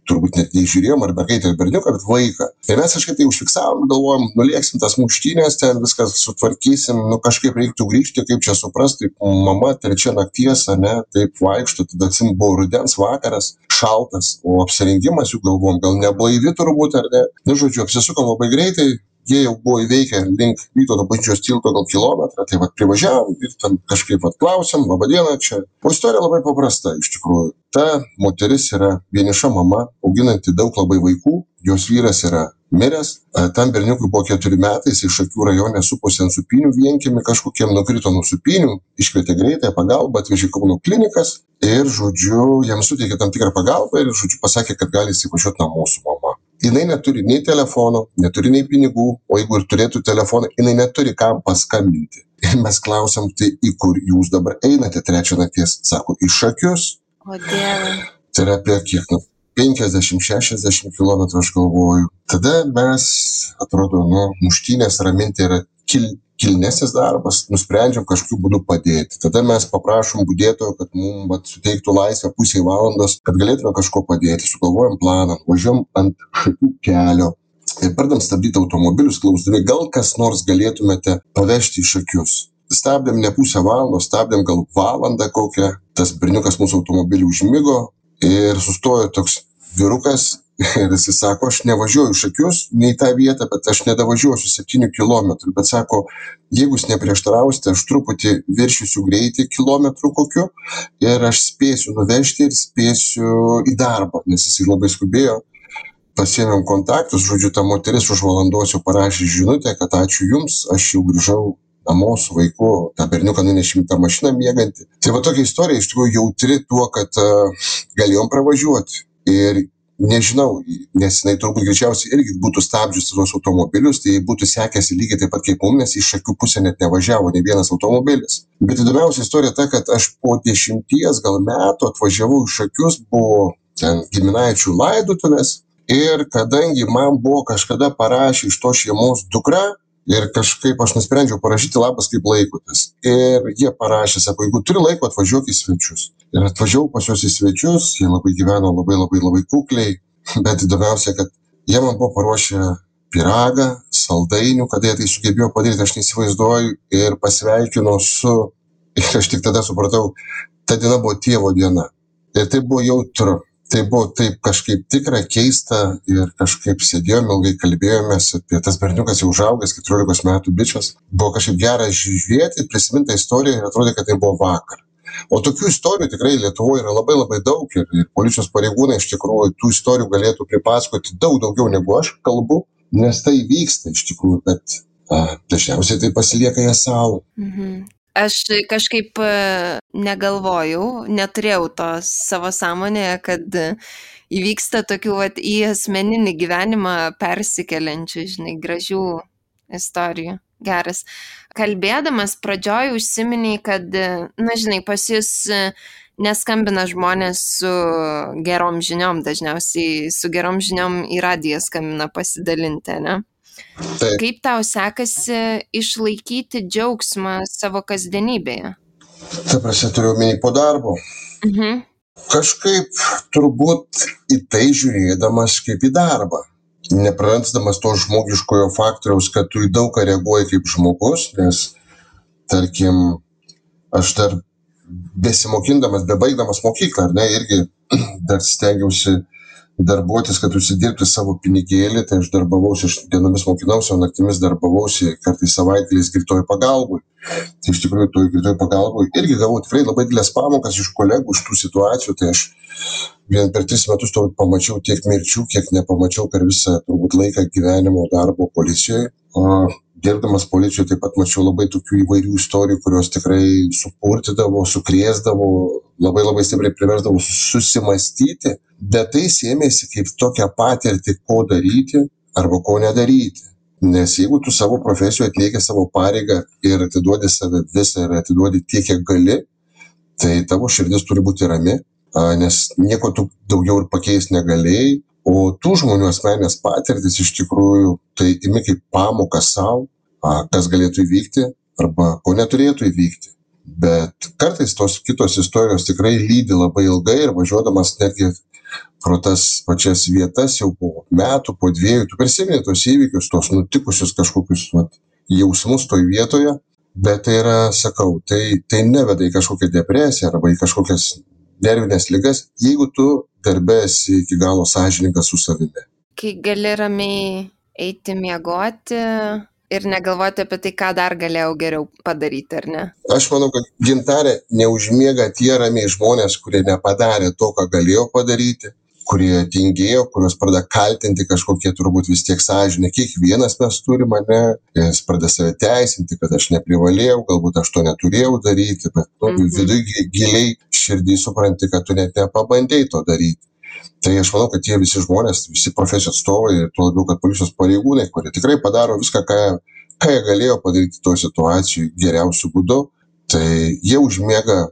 turbūt net neįžiūrėjom, ar mergaitę ar berniuką, bet vaiką. Ir mes kažkaip tai užfiksavom, galvojom, nulėksim tas muštynės, ten viskas sutvarkysim, kažkaip reiktų grįžti, kaip čia suprasti, mama 3 nakties, ne, taip vaikšto, tada buvo rudens vakaras, šaltas, o apsirengimas jų galvom, gal neblaivi turbūt, ar ne. Žodžiu, apsisukom labai greitai, jie jau buvo įveikę link Vytauto bažnyčios tilto gal kilometrą, tai privažiavom ir ten kažkaip klausim, laba diena čia. O istorija labai paprasta, iš tikrųjų. Ta moteris yra vieniša mama, auginanti daug labai vaikų, jos vyras yra miręs, tam berniukui buvo 4 metai, jis iš Šakių rajone suposi ant supinių vienkiemį, kažkokiem nukrito nuo supinių, iškvietė greitąją pagalbą, atvežė Kauno klinikas ir, žodžiu, jam suteikė tam tikrą pagalbą ir, žodžiu, pasakė, kad gali įsivažiuoti namo su mama. Jinai neturi nei telefono, neturi nei pinigų, o jeigu ir turėtų telefoną, jinai neturi kam paskambinti. Ir mes klausiam, tai į kur jūs dabar einate 3 nakties? Sako, į Šakius. O Dieve. Tai yra apie kiek, 50-60 km, aš galvoju. Tada mes, atrodo, muštynės raminti yra kilnesnis darbas, nusprendžiam kažkokiu būdu padėti. Tada mes paprašom budėtojo, kad mums suteiktų laisvę pusę valandos, kad galėtume kažko padėti. Sugalvojam planą, važiuojam ant Šakių kelio ir pradam stabdyti automobilius, klausdami, gal kas nors galėtumėte pavežti į Šakius. Stabdėm ne pusę valandos, stabdėm gal valandą kokią. Tas berniukas mūsų automobilį užmigo ir sustojo toks vyrukas. Ir jis sako, aš nevažiuoju Šakius, nei tą vietą, bet aš nedavažiuosiu 7 kilometrų. Bet sako, jeigu jūs neprieštarausite, aš truputį viršysiu greitį kilometrų kokiu ir aš spėsiu nuvežti ir spėsiu į darbą, nes jis labai skubėjo. Pasiėmėm kontaktus, žodžiu, ta moteris už valandos jau parašė žinutę, kad ačiū jums, aš jau grįžau namo su vaiku, tą berniuką nunešim tą mašiną miegantį. Tai tokia istorija iš tikrųjų jautri tuo, kad galėjom pravažiuoti. Ir nežinau, nes jinai turbūt greičiausiai irgi būtų stabdžius tuos automobilius, tai būtų sekęsi lygiai taip pat kaip mums, nes iš Šakių pusę net nevažiavo nei vienas automobilis. Bet įdomiausia istorija ta, kad aš po 10 gal metų atvažiavau iš Šakius, buvo ten giminaičių laidotuvės ir kadangi man buvo kažkada parašė iš to šeimos dukra, Ir kažkaip aš nusprendžiau parašyti labas kaip laikotės. Ir jie parašė, sako, jeigu turi laiko, atvažiuok į svečius. Ir atvažiavau pas juos į svečius, jie labai gyveno labai kukliai, bet įdomiausia, kad jie man buvo paruošę pyragą, saldainių, kada jie tai sugebėjo padaryti, aš neįsivaizduoju, ir pasveikino su, ir aš tik tada supratau, ta diena buvo tėvo diena. Ir tai buvo jautru. Tai buvo taip kažkaip tikra, keista ir kažkaip sėdėjome, ilgai kalbėjomės apie tas berniukas jau užaugęs, 14 metų bičias. Buvo kažkaip gera žiūrėti, prisiminti istoriją ir atrodė, kad tai buvo vakar. O tokių istorijų tikrai Lietuvoje yra labai daug ir policijos pareigūnai iš tikrųjų tų istorijų galėtų pripasakoti daug daugiau negu aš kalbu, nes tai vyksta iš tikrųjų, bet dažniausiai tai pasilieka jie savo. Aš kažkaip negalvojau, neturėjau to savo sąmonėje, kad įvyksta tokių į asmeninį gyvenimą persikeliančių, gražių istorijų. Geras. Kalbėdamas pradžioj užsiminiai, kad, pas jūs neskambina žmonės su gerom žiniom, dažniausiai su gerom žiniom į radiją skambina pasidalinti, ne? Taip. Kaip tau sekasi išlaikyti džiaugsmą savo kasdienybėje? Ta prasme, turiu omeny po darbo. Kažkaip turbūt į tai žiūrėdamas kaip į darbą. Neprarasdamas to žmogiškojo faktoriaus, kad tu į daug ką reaguoji kaip žmogus, nes, tarkim, aš dar besimokindamas, bebaigdamas mokyklą, ar ne, irgi dar stengiausi darbuotis, kad užsidirbti savo pinigėlį, tai aš darbavausi, aš dienomis mokinausi, o naktimis darbavausi, kartais savaitgaliais greitoji pagalbui. Tai iš tikrųjų toj greitoji pagalbui irgi gavau tikrai labai didelės pamokas iš kolegų, iš tų situacijų, tai aš vien per 3 metus turbūt pamačiau tiek mirčių, kiek nepamačiau per visą turbūt laiką gyvenimo darbo policijoje. O dirbdamas policijoje taip pat mačiau labai tokių įvairių istorijų, kurios tikrai supurtydavo, sukrėsdavo, labai stipriai priversdavo susimastyti, bet tai sėmėsi kaip tokią patirtį, ko daryti arba ko nedaryti. Nes jeigu tu savo profesijoje atlieki savo pareigą ir atiduodi save visą ir atiduodi tiek, kiek gali, tai tavo širdis turi būti rami, nes nieko tu daugiau ir pakeisti negalėjai, o tų žmonių asmenės patirtis iš tikrųjų tai imi kaip pamoką savo, kas galėtų įvykti arba ko neturėtų įvykti. Bet kartais tos kitos istorijos tikrai lydi labai ilgai ir važiuodamas netgi pro tas pačias vietas jau po metų, po 2, tu prisimeni tos įvykius, tos nutikusius kažkokius jausmus toj vietoje, bet tai yra, sakau, tai neveda į kažkokią depresiją arba į kažkokias nervinės ligas, jeigu tu darbe esi iki galo sąžiningas su savimi. Kai gali ramiai eiti miegoti ir negalvoti apie tai, ką dar galėjau geriau padaryti, ar ne? Aš manau, kad Gintarė neužmiega tie ramiai žmonės, kurie nepadarė to, ką galėjo padaryti, kurie tingėjo, kurios pradeda kaltinti kažkokie turbūt vis tiek sąžinė. Kiekvienas mes turime, ne? Jis pradeda save teisinti, kad aš neprivalėjau, galbūt aš to neturėjau daryti, bet viduje giliai širdį supranti, kad tu net nepabandėjai to daryti. Tai aš manau, kad tie visi žmonės, visi profesijos atstovai, tuo labiau, kad policijos pareigūnai, kurie tikrai padaro viską, ką jie galėjo padaryti toje situacijoje geriausiu būdu, tai jie užmiega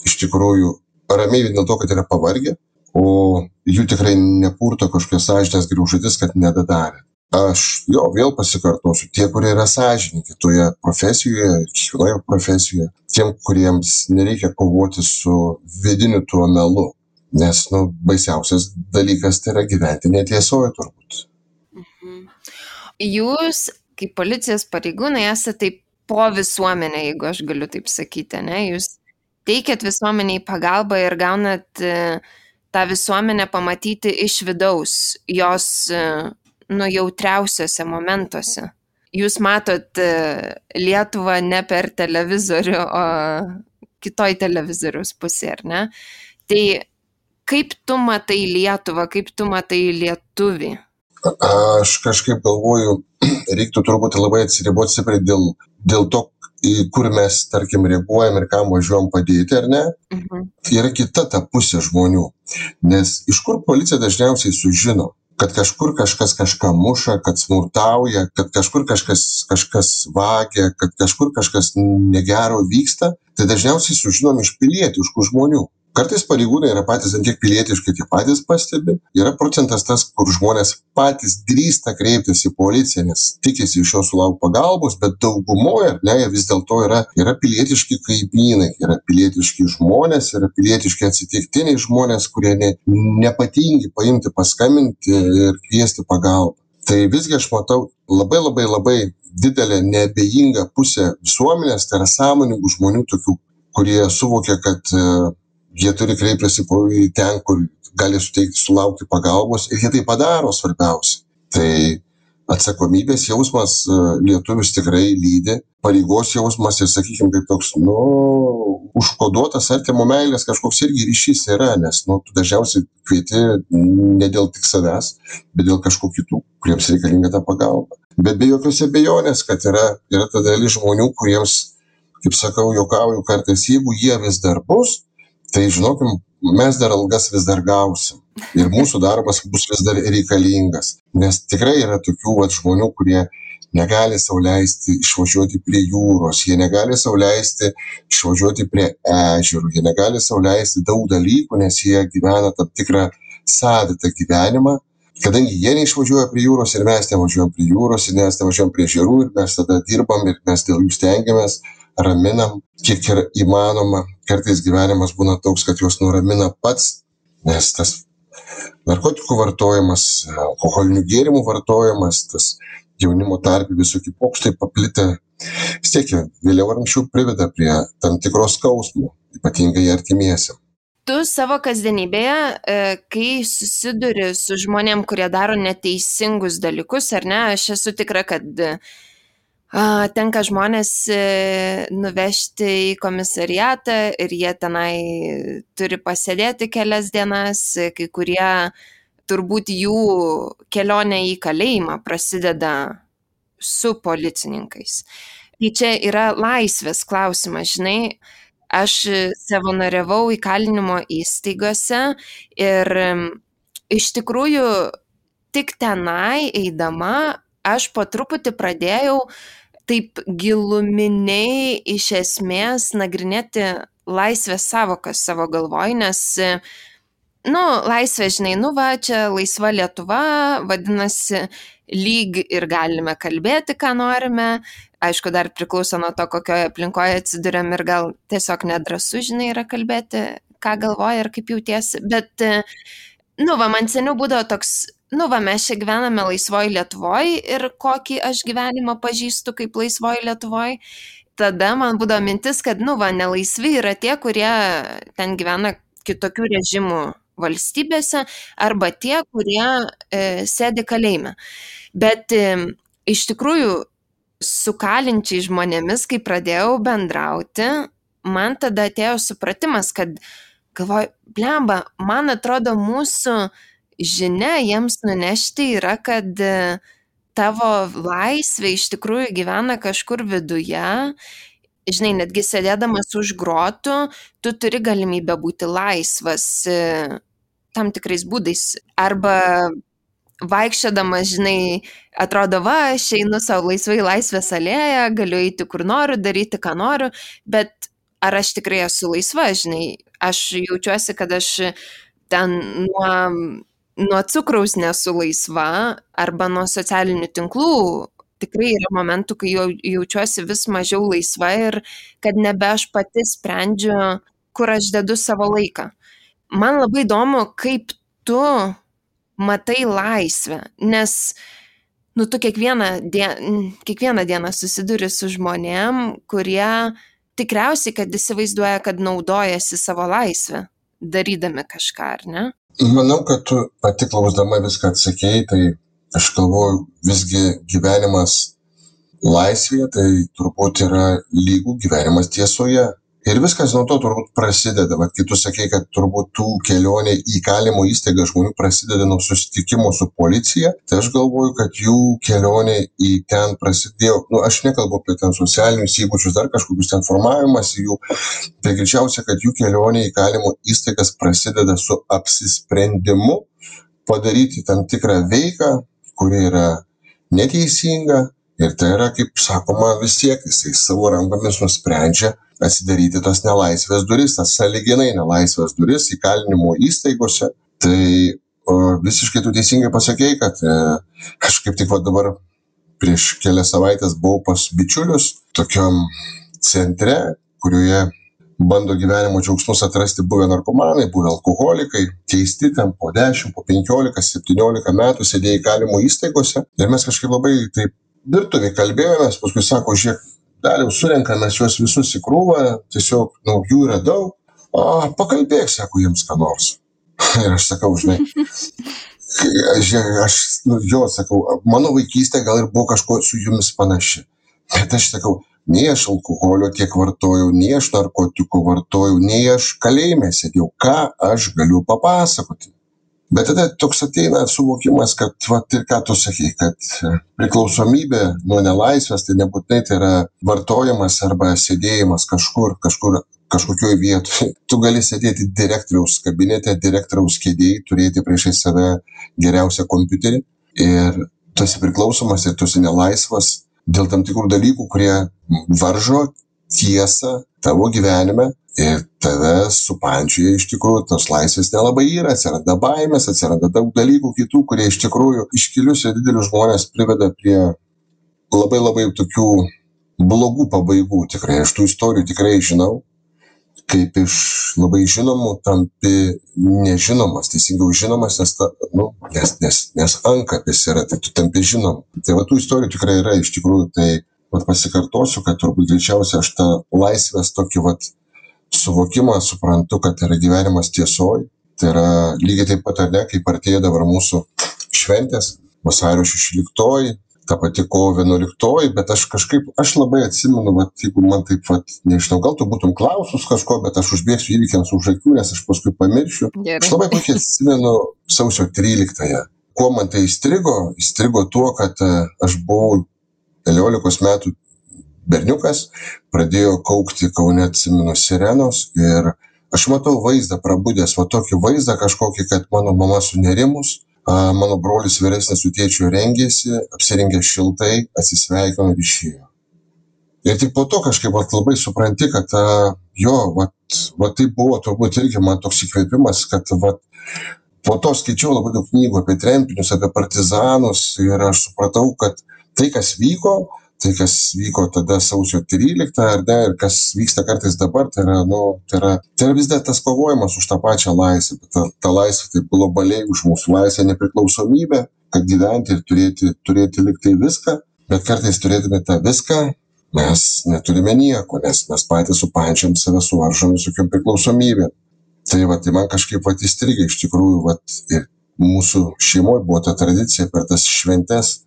iš tikrųjų ramiai vien dėl to, kad yra pavargę, o jų tikrai nepurto kažkokios sąžinės griaužatis, kad nedadarė. Aš vėl pasikartosiu, tie, kurie yra sąžininkai toje profesijoje, kiekvienoje profesijoje, tiem, kuriems nereikia kovoti su vidiniu tuo melu. Nes, baisiausias dalykas tai yra gyventi netiesoje turbūt. Jūs, kaip policijos pareigūnai, esate po visuomenę, jeigu aš galiu taip sakyti, ne? Jūs teikiat visuomeniai pagalbą ir gaunat tą visuomenę pamatyti iš vidaus, jos jautriausiuose momentuose. Jūs matot Lietuvą ne per televizorių, o kitoj televizoriaus pusė, ar ne? Tai kaip tu matai Lietuvą, kaip tu matai lietuvį? Aš kažkaip galvoju, reiktų turbūt labai atsiriboti stipriai dėl to, į kur mes, tarkim, reaguojam ir kam važiuojam padėti, ar ne? Yra kita ta pusė žmonių. Nes iš kur policija dažniausiai sužino, kad kažkur kažkas kažką muša, kad smurtauja, kad kažkur kažkas vagia, kad kažkur kažkas negero vyksta, tai dažniausiai sužinom iš pilietiškų žmonių. Kartais pareigūnai yra patys ant tiek pilietiškai, tiek patys pastebi. Yra procentas tas, kur žmonės patys drįsta kreiptis į policiją, nes tikisi iš jo sulaukti pagalbos, bet daugumoje, jie vis dėlto yra pilietiški kaimynai, yra pilietiški žmonės, yra pilietiški atsitiktiniai žmonės, kurie nepatingi paimti, paskambinti ir kviesti pagalbą. Tai visgi aš matau labai didelę neabejingą pusę visuomenės, tai yra sąmoningų žmonių tokių, kurie suvokia, kad jie turi kreiptis į ten, kur gali sulaukti pagalbos ir jie tai padaro svarbiausia. Tai atsakomybės jausmas lietuvius tikrai lydi, pareigos jausmas ir, sakykime, kaip toks, užkoduotas artimo meilės kažkoks irgi ryšys yra, nes, tu dažniausiai kvieti ne dėl tik savęs, bet dėl kažkokių kitų, kuriems reikalinga ta pagalba. Bet be jokios abejonės, kad yra ta dalis žmonių, kuriems, kaip sakau, juokauju kartais, jeigu jie vis dar bus, tai žinokim, mes dar algas vis dar gausim ir mūsų darbas bus vis dar reikalingas. Nes tikrai yra tokių žmonių, kurie negali sau leisti išvažiuoti prie jūros, jie negali sau leisti išvažiuoti prie ežerų, jie negali sau leisti daug dalykų, nes jie gyvena tam tikrą savitą gyvenimą. Kadangi jie neišvažiuoja prie jūros ir mes nevažiuojam prie jūros ir mes nevažiuojam prie ežerų ir mes tada dirbam ir mes dėl jų stengiamės, raminam, kiek yra įmanoma. Kartais gyvenimas būna toks, kad juos nuramina pats, nes tas narkotikų vartojimas, alkoholinių gėrimų vartojimas, tas jaunimo tarpe visokie pokštai paplitę, vis tiek vėliau ar anksčiau priveda prie tam tikros skausmų, ypatingai artimiesiam. Tu savo kasdienybėje, kai susiduri su žmonėm, kurie daro neteisingus dalykus, ar ne, aš esu tikra, kad tenka žmonės nuvežti į komisariatą ir jie tenai turi pasėdėti kelias dienas, kai kurie turbūt jų kelionė į kalėjimą prasideda su policininkais. Tai čia yra laisvės klausimas, žinai, aš savanoriavau įkalinimo įstaigose ir iš tikrųjų tik tenai eidama aš po truputį pradėjau taip giluminiai iš esmės nagrinėti laisvės savokas savo galvoj, nes, laisvė, žinai, čia laisva Lietuva, vadinasi, lyg ir galime kalbėti, ką norime. Aišku, dar priklauso nuo to, kokioje aplinkoje atsiduriam ir gal tiesiog nedrąsu, žinai, yra kalbėti, ką galvoja ir kaip jautiesi. Bet, man seniau būdavo toks, mes čia gyvename laisvoj Lietuvoj ir kokį aš gyvenimą pažįstu kaip laisvoj Lietuvoj. Tada man būdavo mintis, kad, nelaisvi yra tie, kurie ten gyvena kitokių režimų valstybėse arba tie, kurie sėdi kalėjime. Bet iš tikrųjų su kalinčiai žmonėmis, kai pradėjau bendrauti, man tada atėjo supratimas, kad galvoju, blemba, man atrodo mūsų žinia jiems nunešti yra, kad tavo laisvė iš tikrųjų gyvena kažkur viduje. Žinai, netgi sėdėdamas už grotų, tu turi galimybę būti laisvas tam tikrais būdais. Arba vaikščiodamas, žinai, atrodo, aš einu savo laisvai Laisvės alėją, galiu eiti kur noriu, daryti ką noriu, bet ar aš tikrai esu laisva, žinai, aš jaučiuosi, kad aš ten nuo cukraus nesu laisva arba nuo socialinių tinklų. Tikrai yra momentų, kai jaučiuosi vis mažiau laisva ir kad nebe aš pati sprendžiu, kur aš dedu savo laiką. Man labai įdomu, kaip tu matai laisvę, nes tu kiekvieną dieną susiduri su žmonėm, kurie tikriausiai, kad įsivaizduoja, kad naudojasi savo laisvę, darydami kažką, ar ne? Manau, kad tu pati klausdama viską atsakėjai, tai aš galvoju, visgi gyvenimas laisvėje, tai turbūt yra lygų gyvenimas tiesoje. Ir viskas nuo to turbūt prasideda. Bet kai tu sakei, kad turbūt tų kelionė į įkalinimo įstaigą žmonių prasideda nuo susitikimo su policija, tai aš galvoju, kad jų kelionė į ten prasidėjo, aš nekalbu apie ten socialinius įgūdžius, dar kažkokius ten formavimas jų, tai greičiausia, kad jų kelionė į įkalinimo įstaigas prasideda su apsisprendimu padaryti tam tikrą veiką, kuri yra neteisinga. Ir tai yra, kaip sakoma, vis tiek jisai savo rankomis nusprendžia atsidaryti tas nelaisvės duris, tas sąlyginai nelaisvės duris įkalinimo įstaigose. Tai visiškai tu teisingai pasakei, kad aš kaip tik dabar prieš kelias savaitės buvau pas bičiulius tokiam centre, kurioje bando gyvenimo džiaugsmus atrasti buvę narkomanai, buvę alkoholikai, keisti ten po 10, po 15, 17 metų sėdėjo įkalinimo įstaigose. Ir mes kažkaip labai taip virtuvėje kalbėjomės, paskui sako, žiūrėk, Daliau, surenkame juos visus į krūvą, tiesiog, jų yra daug, pakalbėk, sako, jiems ką nors. Ir aš sakau, žinai, sakau, mano vaikystė gal ir buvo kažko su jumis panaši. Bet aš sakau, nei aš alkoholio tiek vartojau, nei aš narkotikų vartojau, nei aš kalėjime sėdėjau, ką aš galiu papasakoti. Bet tada toks ateina suvokimas, kad, ir ką tu sakei, kad priklausomybė nuo nelaisvės, tai nebūtinai tai yra vartojimas arba sėdėjimas kažkokioj vietoje. Tu gali sėdėti direktoriaus kabinete, direktoriaus kėdėje, turėti priešai save geriausią kompiuterį ir tu esi priklausomas ir tu esi nelaisvas dėl tam tikrų dalykų, kurie varžo tiesą tavo gyvenime. Ir tave supančioje iš tikrųjų tos laisvės nelabai yra, atsiranda baimės, atsiranda daug dalykų kitų, kurie iš tikrųjų iškilius ir didelius žmonės priveda prie labai labai tokių blogų pabaigų. Tikrai aš tų istorijų tikrai žinau, kaip iš labai žinomų tampi nežinomas, teisingiau žinomas, nes ankapis yra, tai tu tampi žinom. Tai tų istorijų tikrai yra iš tikrųjų, tai pasikartosiu, kad turbūt greičiausiai aš tą laisvės tokį suvokimą suprantu, kad yra gyvenimas tiesoj. Tai yra lygiai taip pat, ar ne, kaip artėja dabar mūsų šventės, vasario 16, ta pati kovo 11, bet aš labai atsimenu, jeigu man taip, nežinau, gal tu būtum klausus kažko, bet aš užbėgsiu įvykiams už akių, nes aš paskui pamiršiu. Gerai. Aš labai puikiai atsimenu sausio 13. Kuo man tai įstrigo tuo, kad aš buvau 11 metų berniukas, pradėjo kaukti Kaune, atsimenu, sirenos ir aš matau vaizdą prabudęs, tokį vaizdą kažkokį, kad mano mama sunerimus, mano brolis vyresnis su tėčiu rengėsi, apsirengė šiltai, atsisveikino ir išėjo. Ir tik po to kažkaip labai supranti, kad tai buvo turbūt irgi man toks įkvėpimas, kad po to skaičiau labai daug knygų apie tremtinius, apie partizanus ir aš supratau, kad tai, kas vyko tada sausio 13, ar ne, ir kas vyksta kartais dabar, tai yra vis dar tas kovojimas už tą pačią laisvę, bet ta laisvė taip globaliai už mūsų laisvę, nepriklausomybę, kad gyventi ir turėti liktai viską, bet kartais turėdami tą viską, mes neturime nieko, nes mes patys supančiam save suvaržom visokiom priklausomybėm. Tai man kažkaip įstrigė iš tikrųjų, ir mūsų šeimoje buvo ta tradicija per tas šventes,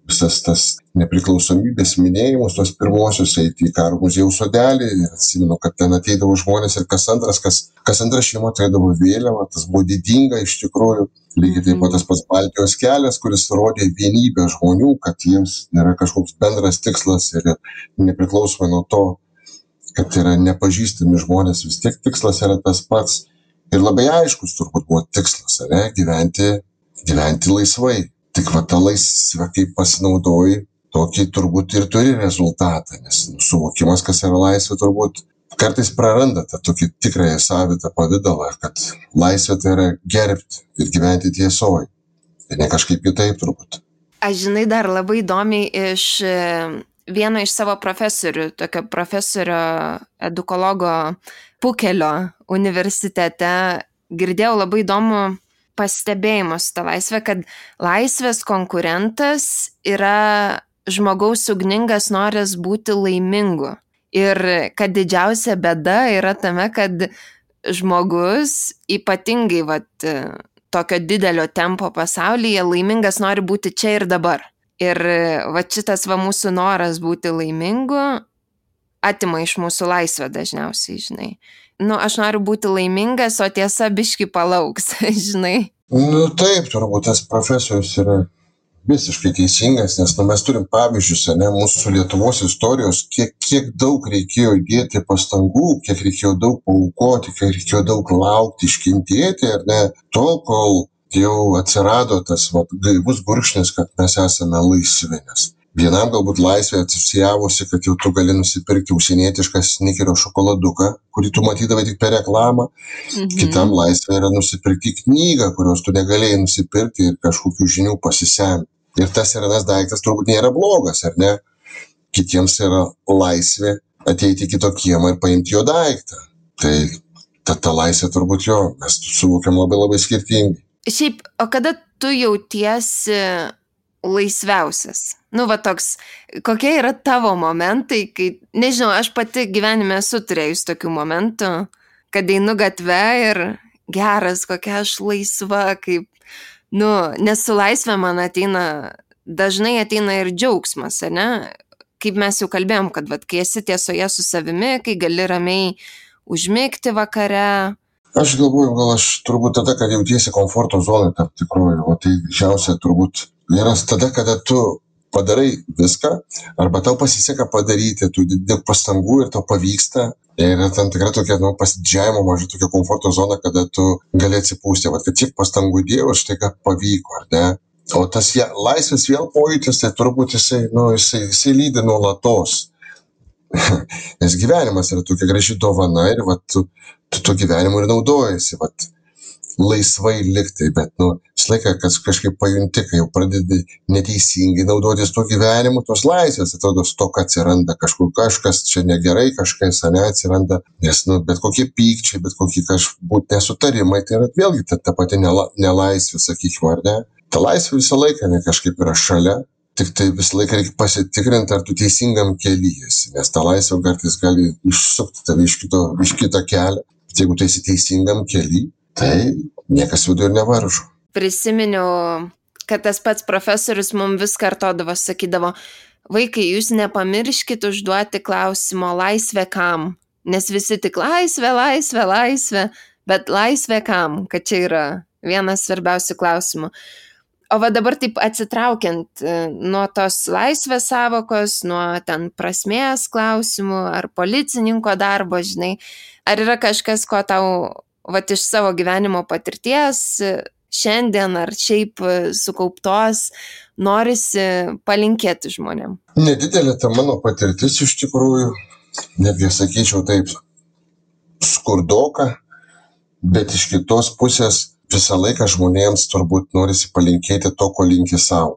visas tas nepriklausomybės minėjimus, tos pirmosios eiti į Karo muziejaus sodelį ir atsimenu, kad ten ateidavo žmonės ir kas antra šeima turėdavo vėliavą, tas buvo didinga iš tikrųjų. Lygiai taip pat tas pats Baltijos kelias, kuris rodė vienybę žmonių, kad jiems yra kažkoks bendras tikslas ir nepriklausomai nuo to, kad yra nepažįstami žmonės, vis tiek tikslas yra tas pats ir labai aiškus turbūt buvo tikslas, gyventi laisvai. Tik tą laisvę, kaip pasinaudoji, tokį turbūt ir turi rezultatą, nes suvokimas, kas yra laisvė, turbūt kartais praranda tą tokį tikrąją savitą pavidalą, kad laisvė tai yra gerbti ir gyventi tiesoj. Ir ne kažkaip kitaip turbūt. Aš žinai dar labai įdomiai iš vieno iš savo profesorių, tokio profesorio edukologo Pukelio universitete, girdėjau labai įdomų pastebėjimus tą laisvę, kad laisvės konkurentas yra žmogaus ugningas noras būti laimingu. Ir kad didžiausia bėda yra tame, kad žmogus ypatingai tokio didelio tempo pasaulyje laimingas nori būti čia ir dabar. Ir šitas mūsų noras būti laimingu atima iš mūsų laisvę dažniausiai, žinai. Aš noriu būti laimingas, o tiesa biški palauks, žinai. Taip, turbūt tas profesorius yra visiškai teisingas, nes mes turim pavyzdžius, mūsų Lietuvos istorijos, kiek daug reikėjo įdėti pastangų, kiek reikėjo daug paaukoti, kiek reikėjo daug laukti, iškentėti, tol, kol jau atsirado tas gaivus gurkšnis, kad mes esame laisvi, nes Vienam galbūt laisvė atsisijavosi, kad jau tu gali nusipirkti užsienietišką Snickerio šokoladuką, kurį tu matydavai tik per reklamą. Kitam laisvė yra nusipirkti knygą, kurios tu negalėjai nusipirkti ir kažkokių žinių pasisemti. Ir tas ir anas daiktas turbūt nėra blogas, ar ne? Kitiems yra laisvė ateiti į kito kiemą ir paimti jo daiktą. Tai ta laisvė turbūt jo, mes suvokiam labai labai skirtingai. Šiaip, o kada tu jautiesi laisviausias? Toks, kokie yra tavo momentai, kai, nežinau, aš pati gyvenime esu turėjus tokių momentų, kad einu gatve ir geras, kokia aš laisva, kaip, nes su laisvė man dažnai ateina ir džiaugsmas, ne? Kaip mes jau kalbėjom, kad kai esi tiesoje su savimi, kai gali ramiai užmigti vakare. Aš galvoju, gal aš turbūt tada, kad jautiesi komforto zonai tam tikroju, o tai didžiausia turbūt yra tada, kada tu padarai viską, arba tau pasiseka padaryti, tu daug pastangų ir tau pavyksta. Ir tam tikra tokia, pasididžiavimo maža tokia komforto zona, kada tu gali atsipūsti, kad tiek pastangų dėjau, štai ką pavyko, ar ne? O tas laisvės vėl pojūtis, tai turbūt jisai lydi nuolatos. Nes gyvenimas yra tokia graži dovana ir tu to gyvenimu ir naudojasi, laisvai liktai, bet visą laiką, kad kažkaip pajunti, kai jau pradedi neteisingai naudotis to gyvenimu, tos laisvės, atrodo, stoka atsiranda, kažkas čia negerai, kažkas atsiranda, nes bet kokie pykčiai, bet kokie kažbūt nesutarimai, tai yra vėlgi ta pati nelaisvė, sakykime, ar ne? Ta laisvė visą laiką kažkaip yra šalia, tik tai visą laiką reikia pasitikrinti, ar tu teisingam kely esi, nes ta laisvė kartais gali išsukti tave iš kito kelio. Jeigu tu esi teisingam kely, tai niekas vidų ir nevaržo. Prisiminiau, kad tas pats profesorius mums vis kartodavo, sakydavo, vaikai, jūs nepamirškit užduoti klausimo laisvė kam, nes visi tik laisvė, bet laisvė kam, kad čia yra vienas svarbiausių klausimų. O dabar taip atsitraukiant nuo tos laisvės savokos, nuo ten prasmės klausimų ar policininko darbo, žinai, ar yra kažkas, ko tau iš savo gyvenimo patirties šiandien ar šiaip sukauptos norisi palinkėti žmonėm? Nedidelė ta mano patirtis iš tikrųjų, netgi sakyčiau taip, skurdoka, bet iš kitos pusės visą laiką žmonėms turbūt norisi palinkėti to, ko linki savo.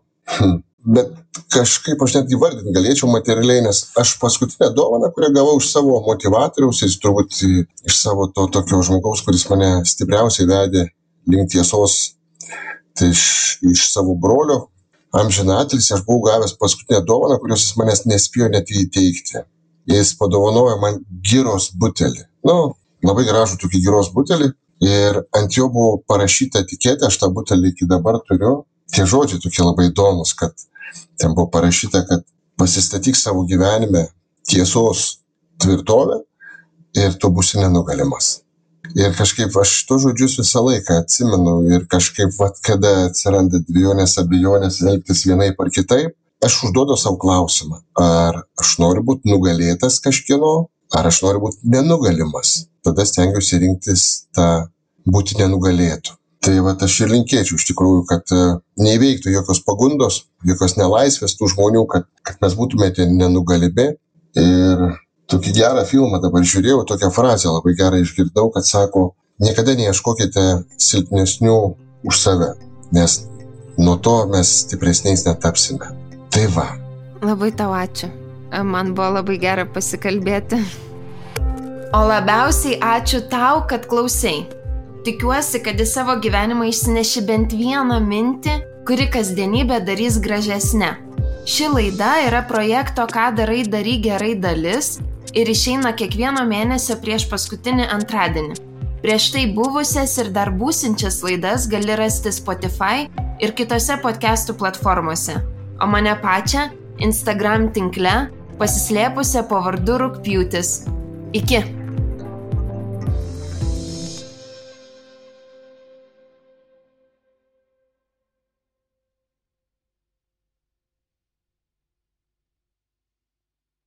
Bet kažkaip aš net įvardinti galėčiau materialiai, nes aš paskutinę dovaną, kurią gavau iš savo motivatoriaus ir turbūt iš savo to tokio žmogaus, kuris mane stipriausiai vedė link tiesos, tai iš savo brolio amžinatilsį aš buvau gavęs paskutinę dovaną, kurios jis manęs nespėjo net įteikti. Jis padovanojo man giros butelį. Labai gražų tokį giros butelį. Ir ant jo buvo parašyta etiketė, aš tą butelį iki dabar turiu. Tie žodžiai tokie labai įdomus, kad ten buvo parašyta, kad pasistatyk savo gyvenime tiesos tvirtovę ir tu būsi nenugalimas. Ir kažkaip aš to žodžius visą laiką atsimenu ir kažkaip, kada atsiranda dvejonės, abejonės elgtis vienaip ar kitaip, aš užduodu savo klausimą, ar aš noriu būti nugalėtas kažkieno, ar aš noriu būti nenugalimas. Tada stengiuosi rinktis tą būti nenugalėtų. Tai aš ir linkėčiau iš tikrųjų, kad neįveiktų jokios pagundos, jokios nelaisvės tų žmonių, kad mes būtumėte nenugalimi. Ir tokį gerą filmą dabar žiūrėjau, tokią frazę labai gerą išgirdau, kad sako, niekada neieškokite silpnesnių už save, nes nuo to mes stipresniais netapsime. Tai va. Labai tau ačiū. Man buvo labai gera pasikalbėti. O labiausiai ačiū tau, kad klausei. Tikiuosi, kad į savo gyvenimą išsineši bent vieną mintį, kuri kasdienybę darys gražesnę. Ši laida yra projekto Ką darai, daryk gerai dalis ir išeina kiekvieno mėnesio prieš paskutinį antradienį. Prieš tai buvusias ir dar būsinčias laidas gali rasti Spotify ir kitose podcastų platformose. O mane pačią Instagram tinkle pasislėpusią po vardu Rugpjūtis. Iki!